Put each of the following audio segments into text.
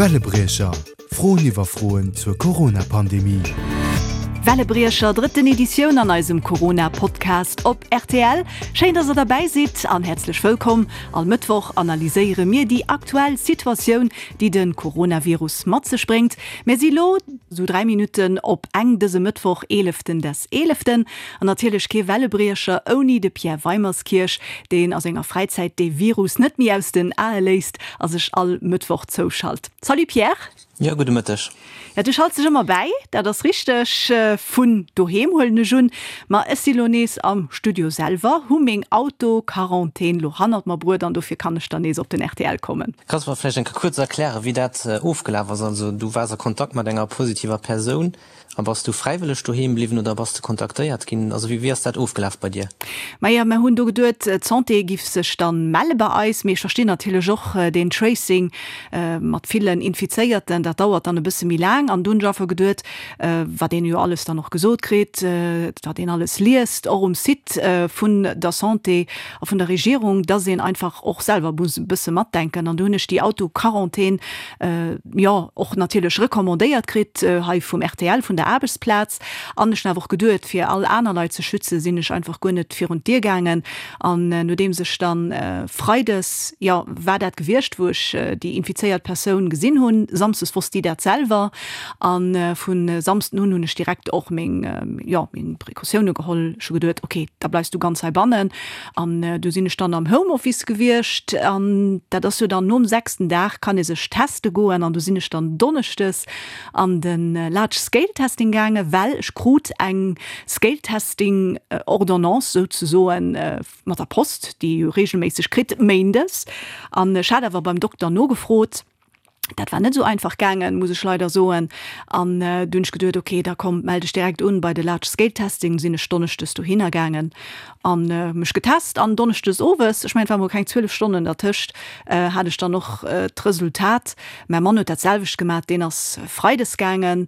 Wellebriecher, Froen iwwer Froen zur Corona-Pandemie. Wellebriecher, drëtten Editioun an eisem Corona-Podcast op rtl. Schéin, dass der derbäi sidd an häerzlech wëllkomm. All Mëttwoch analyséiere mir déi aktuell Situatioun, déi de Coronavirus mat sech bréngt. Mir si lo sou 3 Minutten op eng dëse Mëttwoch, eeleften des eeleften. An natierlech kee Wellebriecher ouni de Pierre Weimerskirch, deen a senger Fräizäit dee Virus net méi aus den Ae léisst a sech all Mëttwoch zouschalt. Salut Pierre! Jo, gudde Mëtteg. Ja, du schalts dech ëmmer bäi, dat ass richteg. Vun doheem huelen ech un. Ma ech si lo nees am Studio selwer, hu meng Auto-Quarantän lo hannert mer bruet an dofir kann ech dann nees op den rtl kommen. Kanns mer vläicht eng Kéier kuerz erklären, wéi dat ofgelaf ass? Also du waars a Kontakt mat enger positiver Persoun. A bass du fräiwëlleg doheem bliwwen oder bass de kontaktéiert ginn? Also wéi ass dat ofgelaf bei dir? Maja, mer hunn do geduet, d'Santé giff sech dann melle bei eis, mee ech verstinn natierlech och deen Tracing mat villen Infizéierten, dat dauert dann e bësse méi laang. An du hunn ech einfach geduet, wat een jo alles dann och gesot kritt, wat een alles liest, och um Site vun der Santé a vun der Regierung, dass een einfach och selwer muss e bësse matdenken. An du hunn ech déi Auto-Quarantän jo och natierlech recommandéiert kritt hei vum rtl, vun der Aarbechtsplaz. An ech hunn awer och geduet, fir all aner Leit ze schützen, sinn ech einfach guer net virun d'Dier gaangen. An nodeems ech dann freides, jo war dat gewiescht, wou ech déi infizéiert Persoun gesinn hunn, samsdes wosst déi dat selwer, a vu Samsden un hunn ech direkt och meng, jo meng Precautioune geholl. Ech hu geduet, ok, da bleifs du ganz heibannen. An du sinn ech dann am Homeoffice gewiescht an dat ass jo dann nom sechsten Dag kann ee sech teste goen an du sinn ech dann donneschdes an de Large Scale Testing gaange well ech krut eng Scale Testing Ordonnance souzesoen mat der Post, déi ee jo regelméisseg kritt méindes an ech hat awer beim Dokter nogefrot. Dat war net esou einfach gaangen, muss ech leider soen. An du hunn ech geduet, ok, da komm, mell dech direkt un bei de Large Scale Testing. Sinn ech donneschdes dohinner gaangen an mech getest. An donneschdes owes, ech mengen, et war mol keng 12 Stonnen dertëscht, hat ech dann och d'Resultat. Mäi Mann huet dat selwecht gemat, deen ass freides gaangen,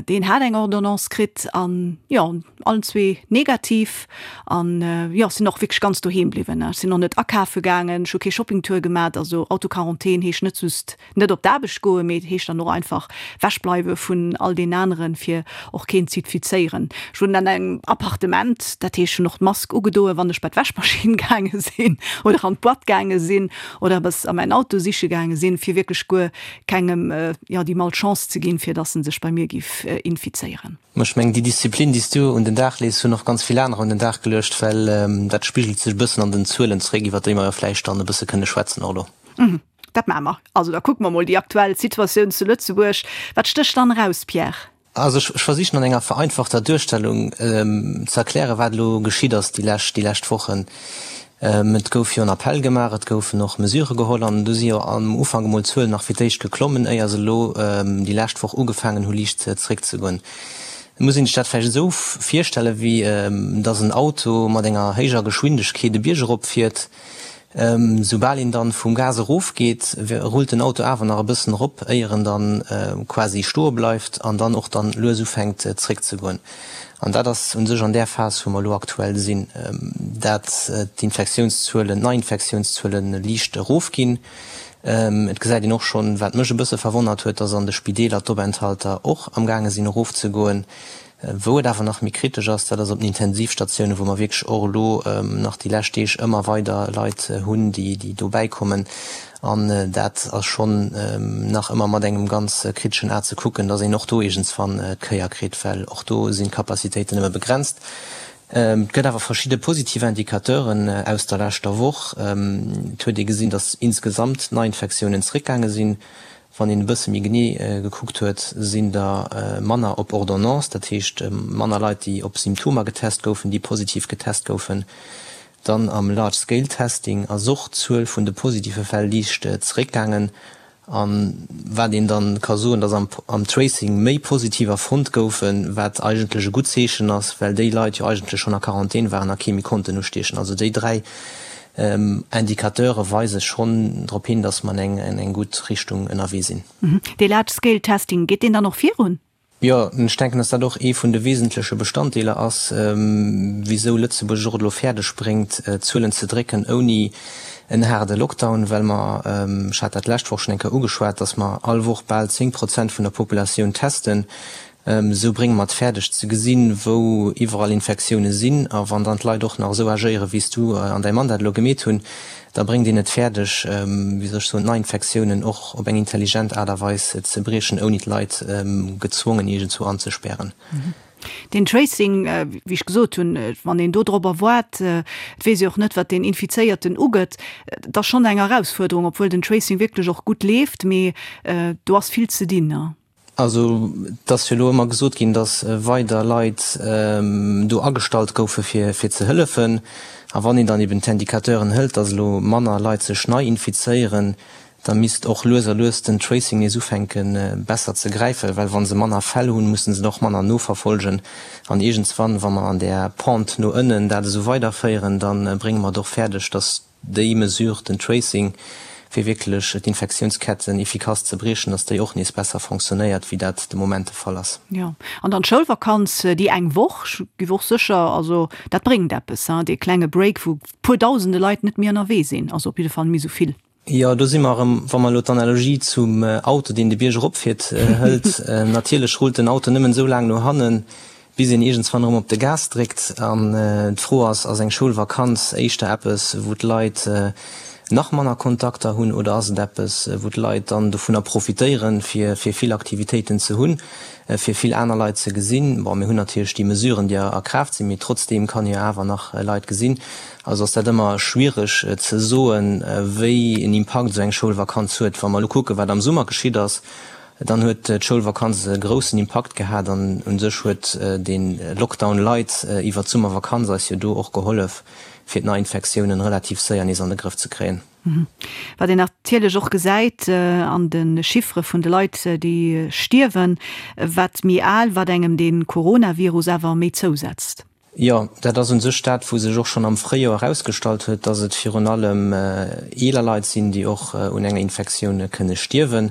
deen hat eng Ordonnance kritt an jo, Allen zwee negativ an jo, sinn och wierklech ganz doheem bliwwen. Ech sinn och net akafe gaangen, ech hu kee Shoppingtour gemat. Also Autoquarantän heescht net just net op d'Aarbecht goen, mee et heescht dann och einfach wechbleiwe vun all deenen aneren, fir och keen z'infizéieren. Ech wunnen an engem Appartement, dat heescht ech hunn och d'Mask ugedoen, wann ech bei d'Wäschmaschinn gaange sinn oder an d'Boîte gaange sinn oder eppes a mäin Auto siche gaange sinn, fir wierklech guer kengem jo déi Malchance ze ginn, fir dass en sech bei mir giff infizéieren. Mä ech mengen, déi Disziplin, déi s du un den Dag lees, hunn och ganz vill anerer un den Dag geluecht, well dat spigelt sech e bëssen an den Zuelen zeréck, iwwert déi mer jo vläicht dann e bësse kënne schwätzen och elo. Dat maache mer. Also da kucke mer mol déi aktuell Situatioun zu Lëtzebuerg. Wat stécht dann eraus, Pierre? Also ech versichen an enger vereinfachter Duerstellung ze erklären, wat elo geschitt ass déi lescht, déi lescht Wochen. Et gouf jo en Appell gemaach, et goufen och Mesurë geholl an do si jo am Ufank emol d'Zuelen nach fir d'éischt geklommen, éier se elo déi lescht Woch ugefaangen hu liicht zeréckzegoen. Et muss een sech dat vläicht esou virstellen, wéi datt en Auto mat enger héijer Geschwindegkeet e Bierg erop fiert. Soubal een dann vum Gas erof geet, rullt den Auto awer nach e bëssen erop, éier en dann quasi stoe bleift an dann och dann lues ufänkt zréck ze goen. An dat ass u sech an där Phas, wou mer elo aktuell sinn, dat d'Infektiounszuelen, d'Neiinfektiounszuele liicht erofginn. Et gesäit een och schonn, wat mech e bësse verwonnert huet, dass an de Spideeler d'Openthalter och amgaange sinn erofzegoen. Wou et awer nach méi kritesch ass, dat ass op den Intensivstatiounen, wou mer wierklech och elo nach déi lescht Deeg ëmmer weider Leit hunn, déi dobäi kommen. An dat ass schonn nach ëmmer mat engem ganz kriteschen A ze kucken, dass een och do iergendswann d'Kéier kritt, well och do sinn d'Capacitéiten nëmme begrenzt. Et gëtt awer verschidde positiv Indicateuren aus der leschter Woch. Et huet ee gesinn, dass insgesamt d'Neiinfektiounen zeréckgaange sinn. Wann een e bësse méi genee gekuckt huet, sinn der manner op Ordonnance, dat heescht manner Leit, déi op Symptomer getest goufen, déi positiv getest goufen. Dann am Large Scale Testing ass och d'Zuel vun de positive Fäll liicht zeréckgaangen. A wat een dann ka soen, datt am Tracing méi Positiver fonnt goufen, wat eigentlech e gutt Zeechen ass, well déi Leit jo eigentlech schonn a Quarantän waren a kee méi konnten ustiechen. Also déi 3 Indicateure weise schonn drop hin, datt mer an eng gutt Richtung ënnerwee sinn. Dee Large Scale Testing, geet deen dann och virun? Jo, ech denken, datt dat och ee vun de wesentleche Bestanddeeler ass, wisou Lëtzebuerg et och elo fäerdeg bréngt, d'Zuelen ze drécken, ouni. en haarde Lockdown, well mer, ech hat dat d'lescht Woch schonn eng Kéier ugeschwat, dass mer all Woch bal 10 Prozent vun der Populatioun testen. Esou brénge mer et fäerdeg ze gesinn, wou iwwerall Infektioune sinn. A wann dann d'Leit och nach esou agéieren, wéi s du an däi Mann dat elo gemeet hunn, da bréngt een et fäerdeg, wéi soll ech soen, d'Neiinfektiounen och op eng intelligent Aart a Weis ze briechen, ouni d'Leit gezwongen iergendzwou anzespären. Deen Tracing, wéi ech gesot hunn, wann een do dorobber waart, et weess ee och net, wat deen Infizéierten ugëtt, et ass schonn eng Erausfuerderung, obwuel den Tracing wierklech och gutt leeft, mee do ass vill ze dinn. Also et ass jo elo ëmmer gesot ginn, datt weider Leit do agestallt goufe fir ze hëllefen. A wann een dann eben d'Indicateuren hëlt, datt elo manner Leit sech nei infizéieren, da misst och lues a lues den Tracing nees ufänke besser ze gräifen, well wa se manner Fäll hunn, musse se och manner noverfolgen. An iergendswann, wa mer an där Pente no ënnen dat esou weiderféieren, da brénge mer et och fäerdeg, datt Déi Mesure, den Tracing, fir wierklech d'Infektiounsketten efficace ze briechen, dass déi och nees besser fonctionnéiert, wéi dat de Moment de Fall ass. Jo, an dann d'Schoulvakanz, déi eng Woch, ech giff och sécher, also dat bréngt eppes, hein, dee klenge Break, wou puer dausende Leit net méi ënnerwee sinn, also op jidde Fall méi esou vill. Jo, do si mer erëm, wa mer elo d'Analogie zum Auto, deen de Bierg eropfiert, hëlt. Natierlech rullt den Auto nëmmen esou laang no hannen, bis een iergendswann erëm op de Gas dréckt. An d'Fro ass, Ass eng Schoulvakanz éischter eppes, wou d'Leit nach manner Kontakter hunn, oder ass et eppes, wou d'Leit dann dovunner profitéieren, fir vill Aktivitéiten ze hunn, fir vill aner Leit ze gesinn? Bon, mir hunn natierlech déi Mesuren, déi a Kraaft sinn, mee trotzdeem kann ee jo awer nach Leit gesinn. Also ass dat ëmmer schwiereg ze soen, wéi en Impakt esou eng Schoulvakanz huet. Wa mer elo kucken, wat am Summer geschitt ass, Dann huet d'Schoulvakanz e groussen Impakt gehat an u sech huet de Lockdown light iwwer d'Summervakanz eis jo do och gehollef, fir d'Neiinfektiounen relativ séier nees an de Grëff ze kréien. Wat een natierlech och gesäit an de Chiffere vun de Leit, déi stierwen, wat méi al, wat engem de Coronavirus awer méi zousetzt. Jo, dat ass u sech dat, wou sech och schonn am Fréijoer erausgestallt huet, dass et virun allem eeler Leit sinn, déi och un enger Infektioun kënne stierwen.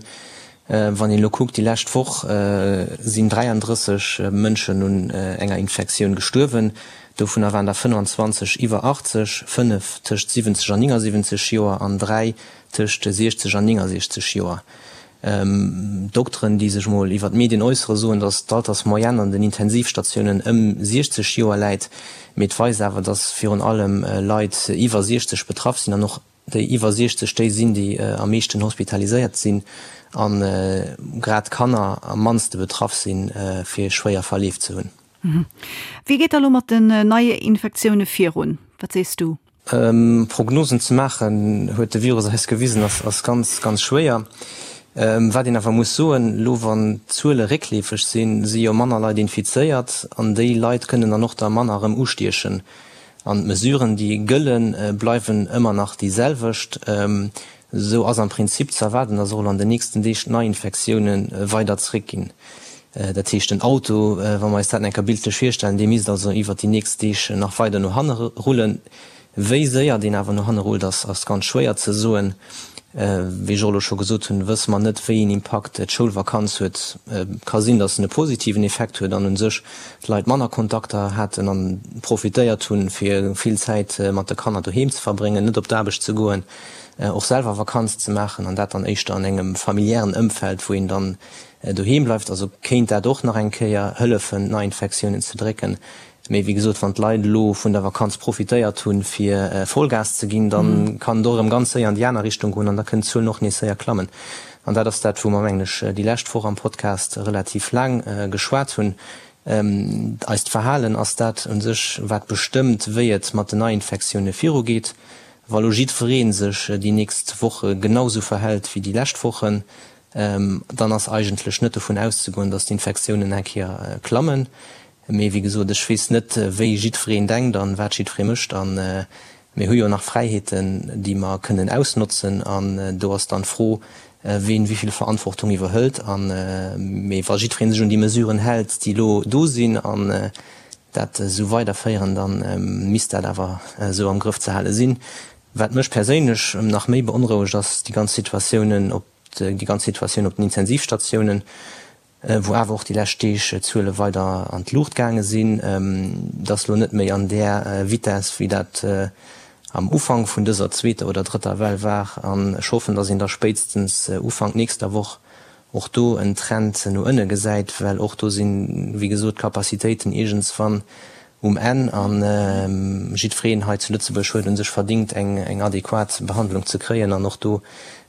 Wann een elo kuckt, déi lescht Woch sinn 33 Mënschen un enger Infektioun gestuerwen. Dovunner waren der 25 iwwer 80, 5 tëscht 70 an 79 Joer an 3 tëscht 60 an 69 Joer. Dokteren, déi sech mol iwwer d'Medien äussere, soen, datt d'Altersmoyenne an den Intensivstatiounen ëm 60 Joer läit. Mee et weist awer, datt virun allem Leit iwwer 60 betraff sinn an och déi iwwer 60 déi sinn, déi am meeschten hospitaliséiert sinn a grad d'Kanner am mannste betraff sinn, fir schwéier Verleef ze hunn. Wéi geet da lo mat den Neiinfektioune virun? Wat sees du? Prognosen ze maachen, huet de Virus eis gewisen, ass ganz, ganz schwéier. Wat een awer muss soen, elo wann d'Zuele réckleefeg sinn, si jo manner Leit infizéiert an déi Leit kënnen dann och der manner erëm ustiechen. An d'Mesuren, déi gëllen, bleiwen ëmmer nach déi selwecht. Esou ass am Prinzip ze erwaarden, dass och elo an den nächsten Deeg d'Neiinfektioune weider zeréckginn. Dat heescht, den Auto, wa mer eis dat eng Kéier bildlech virstellen, dee misst also iwwert déi nächst Deeg nach weider no hanne rullen. Wéi séier deen awer no hanne rullt, ass ganz schwéier ze soen. Wéi ech och elo scho gesot hunn, wësse mer net, wéi een Impakt d'Schoulvakanz huet. Et ka sinn, datt en e positiven Effekt huet an u sech d'Leit manner Kontakter haten a profitéiert hunn, fir vill Zäit mat de Kanner doheem ze verbréngen, net op d'Aarbecht ze goen, och selwer Vakanz ze maachen an dat dann éischter an engem familiären Ëmfeld, wou een dann doheem bleift. Also kéint dat och nach eng Kéier hëllefen, d'Neiinfektiounen ze drécken. Mee wéi gesot, wann d'Leit elo vun der Vakanz profitéiert hunn, fir Vollgas ze ginn, da kann et och erëm ganz séier an déi aner Richtung goen an da kënnen d'Zuelen och nees séier klammen. An dat ass dat, wou mer, mengen ech, déi lescht Woch am Podcast relativ laang geschwat hunn. Eist Verhalen ass dat u sech, wat bestëmmt, wéi et mat den Neiinfektioune virugeet. Wa lo jiddweree sech déi nächst Woche genau sou verhält wéi déi lescht Wochen, dann ass eigentlech net dovun auszegoen, datt d'Infektiounen eng Kéier klammen. Mee wéi gesot, ech weess net, wéi jiddwereen denkt an wat jiddweree mécht. A mir hu jo nach Fräiheeten, déi mer kënnen ausnotzen. An do ass dann d'Fro, ween wéi vill Verantwortung iwwerhëlt. A mee wa jiddweree sech un déi Mesuren hält, déi elo do sinn, an dat esou weiderféieren, da misst dat awer esou am Grëff ze hale sinn. Wat mech perséinlech nach méi beonrouegt, ass déi ganz Situatiounen op déi ganz Situatioun op den Intensivstatiounen, wou awer och déi lescht Deeg d'Zuele weider an d'Luucht gaange sinn. Et ass elo net méi an där Vitess, wéi dat. am Ufank vun dëser zweeter oder drëtter Well war. An ech hoffen, dass een da spéitstens Ufank nächster Woch och do en Trend no ënne gesäit, well och do sinn, wéi gesot, d'Capacitéiten iergendswann um Enn. A jiddwereen hei zu Lëtzebuerg huet u sech verdingt, eng adequat Behandlung ze kréien an och do,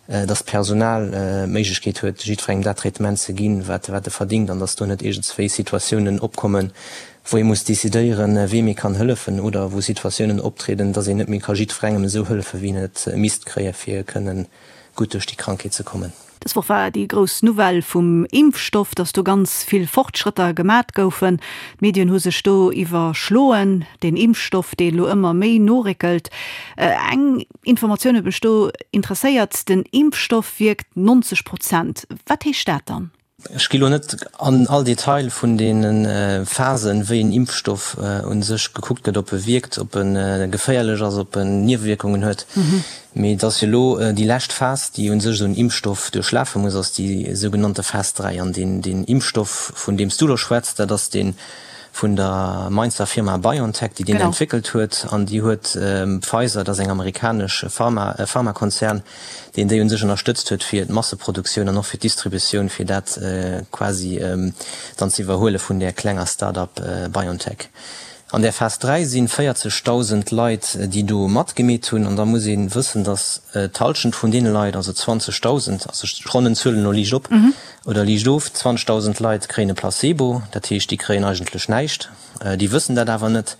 dass d'Personal d'Méiglechkeet huet, jiddwerengem dat Traitement ze ginn, wat e verdingt, an dass do net iergendswéi Situatiounen opkommen, wou ee muss decidéieren, weem ee kann hëllefen, oder wou Situatiounen optrieden, dass een net méi ka jiddwerengem esou hëllefen, wéi en et misst kréien, fir kënnen gutt duerch déi Krankheet ze kommen. Dës Woch war déi grouss Nouvelle vum Impfstoff, dass do ganz vill Fortschrëtter gemat goufen. D'Medien hu sech do iwwerschloen, deen Impfstoff, dee elo ëmmer méi noréckelt. Eng Informatioun huet mech do interesséiert, den Impfstoff wierkt 90 Prozent. Wat heescht dat dann? Ech gi lo net an all Detail vun deene Phasen, wéi en Impfstoff u sech gekuckt gëtt, ob e wierkt, ob e geféierlech ass, ob en Niewewierkungen huet. Mee et ass jo elo déi lescht Phas, déi u sech esou en Impfstoff duerchlafe muss, ass déi sougenannte Phas 3. An deen Impfstoff, vun deem s du elo schwätz, dat ass dee vun der Mainzer Firma BioNTech, déi deen entwéckelt huet. An déi huet Pfizer, dat ass eng amerikanesch Pharma, e Pharmakonzern, deen déi un sech ënnerstëtzt huet fir d'Masseproduktioun an och fir d'Distributioun, fir dat quasi dann ze iwwerhuele vun där klenger Start-up BioNTech. An där Phas 3 si 40.000 Leit, déi do matgemeet hunn. An da muss ee wëssen, datt d'Hallschent vun deene Leit, also 20.000, also ech ronnen d'Zuelen elo liicht op oder liicht of, 20.000 Leit kréien e Placebo, dat heescht, déi kréien eigentlech näischt, déi wëssen dat awer net.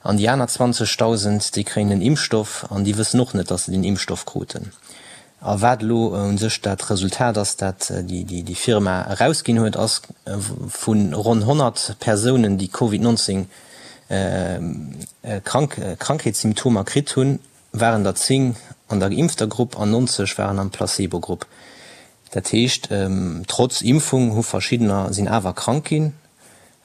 An déi aner 20.000, déi kréien den Impfstoff an déi wëssen och net, datt se den Impfstoff kruten. A wat elo u sech dat Resultat ass, dat déi Firma erausginn huet, ass, vu ronn 100 Persounen, déi Covid 19 Krankheetssymptomer kritt hunn, waren der 10 an der geimpfter Grupp an 90 waren am Placebo-Grupp. Dat heescht, trotz Impfung hu verschiddener sinn awer krank ginn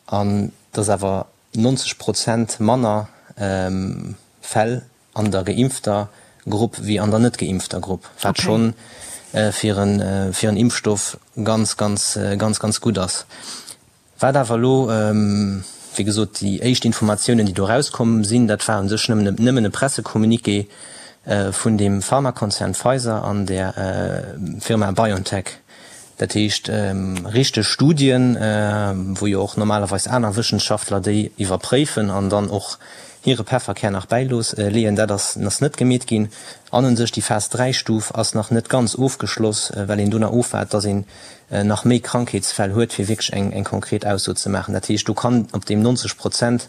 an et ass awer 90 Prozent manner Fäll an der geimpfter Grupp wéi an der net geimpfter Grupp, wat scho fir en Impfstoff ganz, ganz, ganz, ganz gutt ass. Wat awer elo, wéi gesot, déi éischt Informatiounen, déi do erauskomm sinn, dat war u sech nëmmen e Pressecommuniqué vun deem Pharmakonzern Pfizer an der Firma BioNTech. Dat heescht, richteg Studien, wou jo och normalerweis aner Wëssenschaftler déi iwwerpréifen an dann och hire Pefferkär nach bäileeën, dat ass net gemeet ginn. An u sech déi Phas 3 Stuf ass nach net ganz ofgeschloss, well een do nach ofwaart, dass een nach méi Krankheetsfäll huet, fir wierklech eng konkret Ausso ze maachen. Dat heescht, do kann op deem 90 Prozent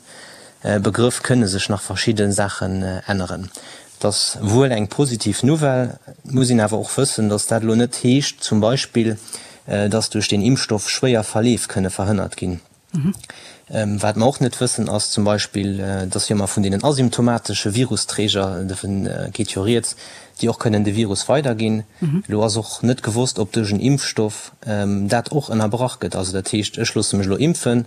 Begrëff kënne sech nach verschidde Saachen änneren. Et ass wuel eng positiv Nouvelle, et muss een awer och wëssen, datt dat elo net heescht zum Beispill, datt duerch deen Impfstoff schwéier Verleef kënne verhënnert ginn. Wat mer och net wëssen, ass zum Beispill, datt jo ëmmer vun deenen asymptomatesche Virusträger, dovun geet jo rieds, déi och kënnen de Virus weiderginn. Elo ass och net gewosst, ob duerch en Impfstoff dat och ënnerbrach gëtt. Also dat heescht, ech loosse mech elo impfen,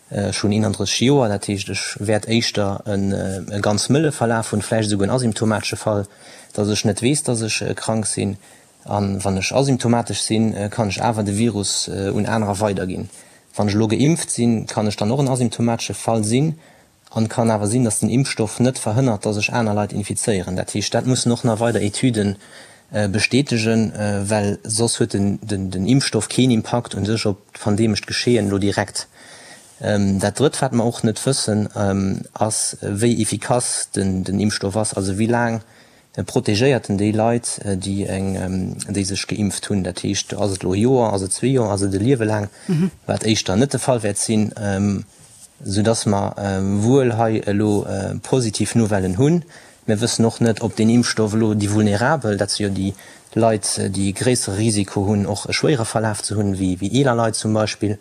Ech hunn 31 Joer, dat heescht ech wäert éischter e ganz mëlle Verlaf hunn, vläicht esouguer en asymptomatesche Fall, datt ech net weess, datt ech krank sinn. A wann ech asymptomatesch sinn, kann ech awer de Virus un anerer weiderginn. Wann ech elo geimpft sinn, kann ech dann och en asymptomatesche Fall sinn an kann awer sinn, datt den Impfstoff net verhënnert, datt ech aner Leit infizéieren. Dat heescht, dat mussen och nach weider Etüden bestätegen, well soss huet den Impfstoff keen Impakt u sech op d'pandemescht Geschehen elo direkt. Dat Drëtt, wat mer och net wëssen, ass, wéi efficace den Impfstoff ass, also wéi laang protegéiert en déi Leit, déi sech geimpft hunn. Dat heescht, ass et elo e Joer, ass et zwee Joer, ass et e Liewe laang, wat éischter net de Fall wäert sinn, soudass mer wuel hei elo positiv Nouvellen hunn. Mir wëssen och net, ob deen Impfstoff elo déi Vulnerabel, dat si jo déi Leit, déi e gréissere Risiko hunn, och e schwéiere Verlaf ze hunn, wéi eeler Leit zum Beispill,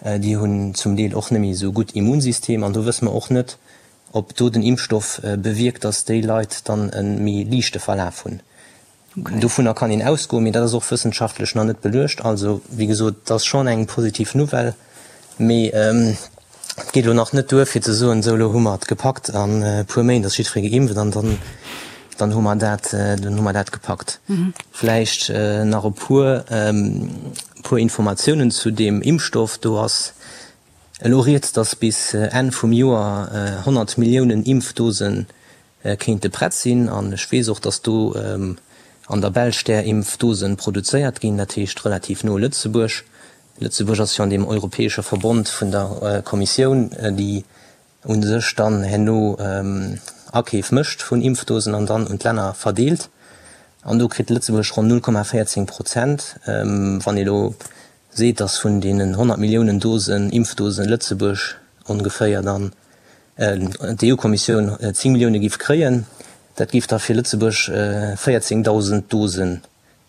déi hunn zum Deel och net méi esou gutt Immunsystem. An do wësse mer och net, ob do den Impfstoff bewierkt, datt déi Leit dann e méi liichte Verlaf hunn. Dovunner kann een ausgoen, mee dat ass och wëssenschaftlech nach net beluecht. Also, wéi gesot, et ass schonn eng positiv Nouvelle, mee et geet elo nach net duer, fir ze soen, esou elo hu mer et gepackt, an e puer Méint ass jiddweree geimpft an dann, dann hu mer dat, dann hu mer dat gepackt. Vläicht nach e puer, puer Informatiounen zu deem Impfstoff. Do ass elo rieds, dass bis Enn vum Joer 100 Milliounen Impfdosen. Kéinte prett sinn. An ech weess och, datt do an der Belsch där Impfdosen produzéiert ginn, dat heescht relativ no Lëtzebuerg. Lëtzebuerg ass jo an deem europäesche Verbond vun der Kommissioun, déi u sech dann herno Akeef mécht vun Impfdosen an dann un d'Länner verdeelt. An do kritt Lëtzebuerg ronn 0,14 Prozent. Wann ee elo seet, datt vun deenen 100 Milliounen Dosen, Impfdosen, Lëtzebuerg ongeféier dann d'EU-Kommissioun 10 Millioune giff kréien, dat giff da fir Lëtzebuerg 14.000 Dosen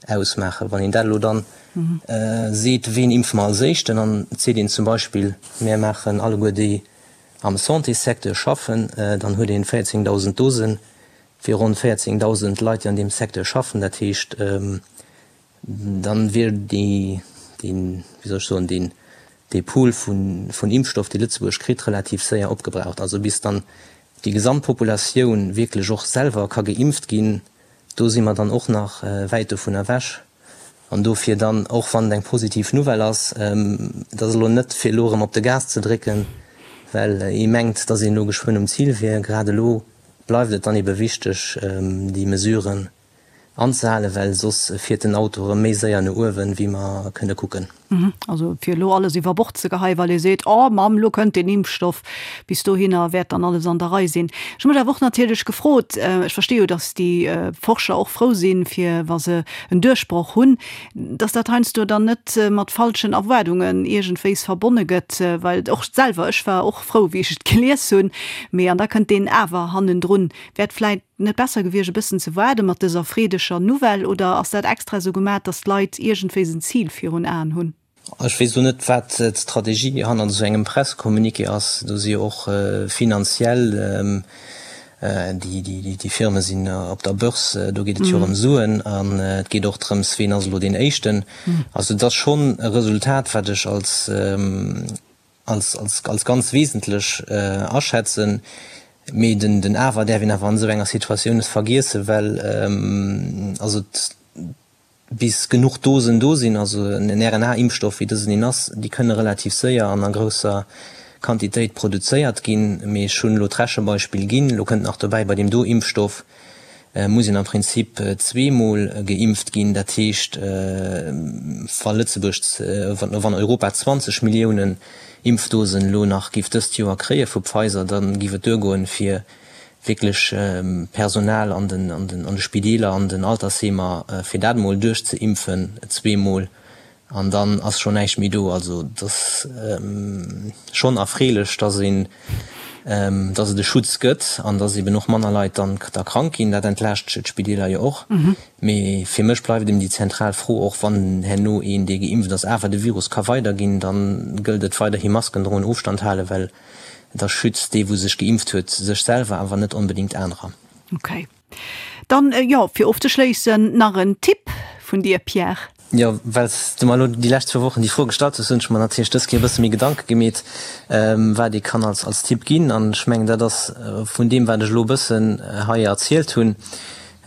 ausmaachen. Wann een dat elo dann seet, ween impfe mer als éischten, an et seet een zum Beispill, mär maachen alleguer déi am Santéssecteur schaffen, dann huet een 14.000 Dosen fir ronn 14.000 Leit, déi an deem Secteur schaffen. Dat heescht, Dann wier déi, deen, wéi soll ech soen, deen, dee Pool vun, vun Impfstoff, dee Lëtzebuerg kritt, relativ séier opgebraucht. Also bis dann déi gesamt Populatioun wierklech och selwer ka geimpft ginn, do si mer dann och nach wäit dovun ewech. An dofir dann, och wann et eng positiv Nouvelle ass, et ass elo net fir elo erëm op de Gas ze drécken, well ee mengt, datt een elo geschwënn um Zil wier. Grad elo bleift et dann ebe wichteg, déi Mesuren anzehalen, well soss fiert den Auto erëm méi séier no uewen, wéi mer kënne kucken. Also fir elo alles iwwer Bord ze geheien, well ee seet, Oh Mamm, elo kënnt deen Impfstoff, bis dohinner wäert dann alles an der Rei sinn. Ech hu mech awer och natierlech gefrot, ech versti jo, datt déi Forscher och frou sinn, fir wa se en Duerchbroch hunn, datt dat heiansdo dann net mat falschen Erwaardungen iergendwéis verbonne gëtt, well och selwer, ech war och frou, wéi ech et gelies hunn, mee an da kënnt deen Awer hannendrun. Wäert vläit net besser gewiescht e bëssen ze waarde mat dëser freedeger Nouvelle oder ass dat extra esou gemat, datt d'Leit iergendwéis en Zil virun Aen hunn? Ech weess elo net, wat d'Strategie hannert esou engem Pressecommuniqué ass. Do si jo och finanziell, déi Firme sinn op der Börse, do geet et jo och ëm Suen an et geet och drëms, ween ass elo deen Éischten. Also et ass schonn e Resultat, wat ech als als, als, als ganz wesentlech aschätzen. Mee den, den Awer däerf een awer an esou enger Situatioun net vergiessen, well also bis genuch Dosen do sinn, also en RNA-Impfstoff wéi dësen een ass, déi kënne relativ séier an a grousser Quantitéit produzéiert ginn. Mee ech hunn elo d'Rechebeispill ginn. Elo kënnt nach dobäi, bei deem do Impfstoff muss een am Prinzip zweemol geimpft ginn. Dat heescht, wa Lëtzebuerg, wann Europa 20 Milliounen Impfdosen elo nach géif dëst Joer kréie vu Pfizer, da géif et duergoen, fir wierklech Personal an de Spideeler, an den Altersheemer, fir dat emol duerchzeimpfen, zweemol. An dann ass schonn näischt méi do. Also et ass schonn erfreelech, dass een, dass et e Schutz gëtt an dass eben och manner Leit dann da krank ginn. Dat entlaascht d'Spideeler jo och. Mee fir mech bleift eben déi zentral Fro, och wann herno een, dee geimpft ass, awer de Virus ka weiderginn, da gëllt et weiderhi Masken droen, Ofstand halen, well da schützt dee wou sech geimpft huet sech selwer, awer net onbedéngt anerer. Okay. Dann, jo, fir ofzeschléissen, nach en Tipp vun dir, Pierre. Jo, well s du mer elo déi lescht zwou Wochen déi Fro gestallt hues, hunn ech mer natierlech dës Kéier e bësse méi Gedanke gemeet, wat ee kann als als Tipp ginn. An ech mengen, dat ass vun deem, wat ech elo e bëssen hei erzielt hunn.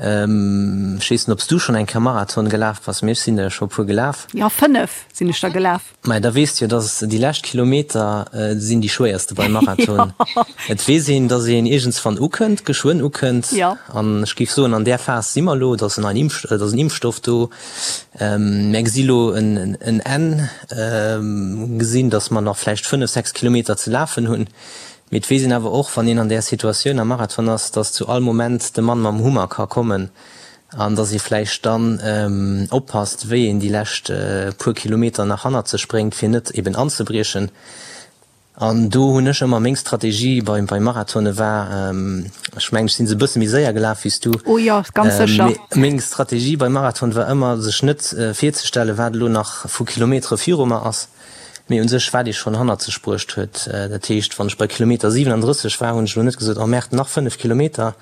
Ech weess net, ob s du schonn eng Kéier Marathon gelaf bass, mee ech sinn der jo scho e puer gelaf. Jo, 5 sinn ech der gelaf. Mä da weess de jo, dass déi lescht Kilometer sinn déi schwéierste beim Marathon. Et weess een, dass een iergendswann ukënnt, geschwënn ukënnt. An ech géif soen, an där Phas si mer elo. Et ass en neien Impf, et ass en Impfstoff do. Mär gesi lo en Enn, gesinn, dass mer nach vläicht 5, 6 Kilometer ze lafen hunn. Mee et weess een awer och, wann een an där Situatioun am Marathon ass, dass zu all Moment de Mann mam Hummer ka kommen An dass ee vläicht dann oppasst, wéi een déi lescht puer Kilometer nach hannert sech bréngt, fir net eben anzebriechen. An do hunn ech ëmmer meng Strategie bei bei Marathone war, ech mengen, ech sinn se e bësse méi séier gelaf wéi s du. Oh jo, ganz sécher. Mee meng Strategie beim Marathon war ëmmer, sech net virzestellen, wat elo nach vu Kilometere viru mer ass, mee u sech wat ee schonn hannert sech bruecht huet. Dat heescht, wann ech bei Kilometer 37 war, hunn ech elo net gesot, oh Merde, nach 5 Kilometer,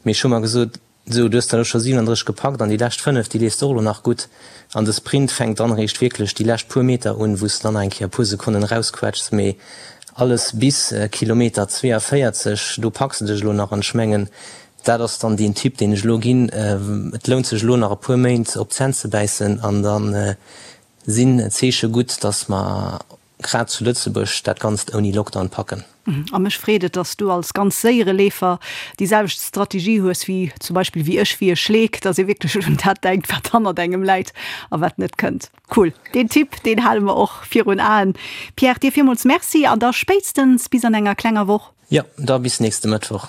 mee ech hu mer gesot, Sou, du hues der elo scho 37 gepackt an déi lescht 5, déi leefs de och elo nach gutt. An de Sprint fänkt dann eréischt wierklech déi lescht puer Meter un, wou s de dann nach eng Kéier e puer Sekonnen erausquetschs. Mee alles bis Kilometer 42, do packs de dech elo nach. An ech mengen, dat ass dann deen Tipp, deen ech elo ginn, Et lount sech elo nach e puer Méint op d'Zänn ze bäissen an da sinn d'Zeeche gutt, dass mer. grad zu Lëtzebuerg dat Ganzt ouni Lockdown packen. A mech freet et, dass du als ganz séiere Leefer déi selwecht Strategie hues wéi zum Beispill wéi ech, wéi e Schleek, dass ee wierklech un dat denkt, wat hannert engem läit a wat net kënnt. Cool, deen Tipp, deen hale mer och virun Aen. Pierre, dir villmools Merci an da spéitstens bis an enger klenger Woch. Jo, da bis nächste Mëttwoch.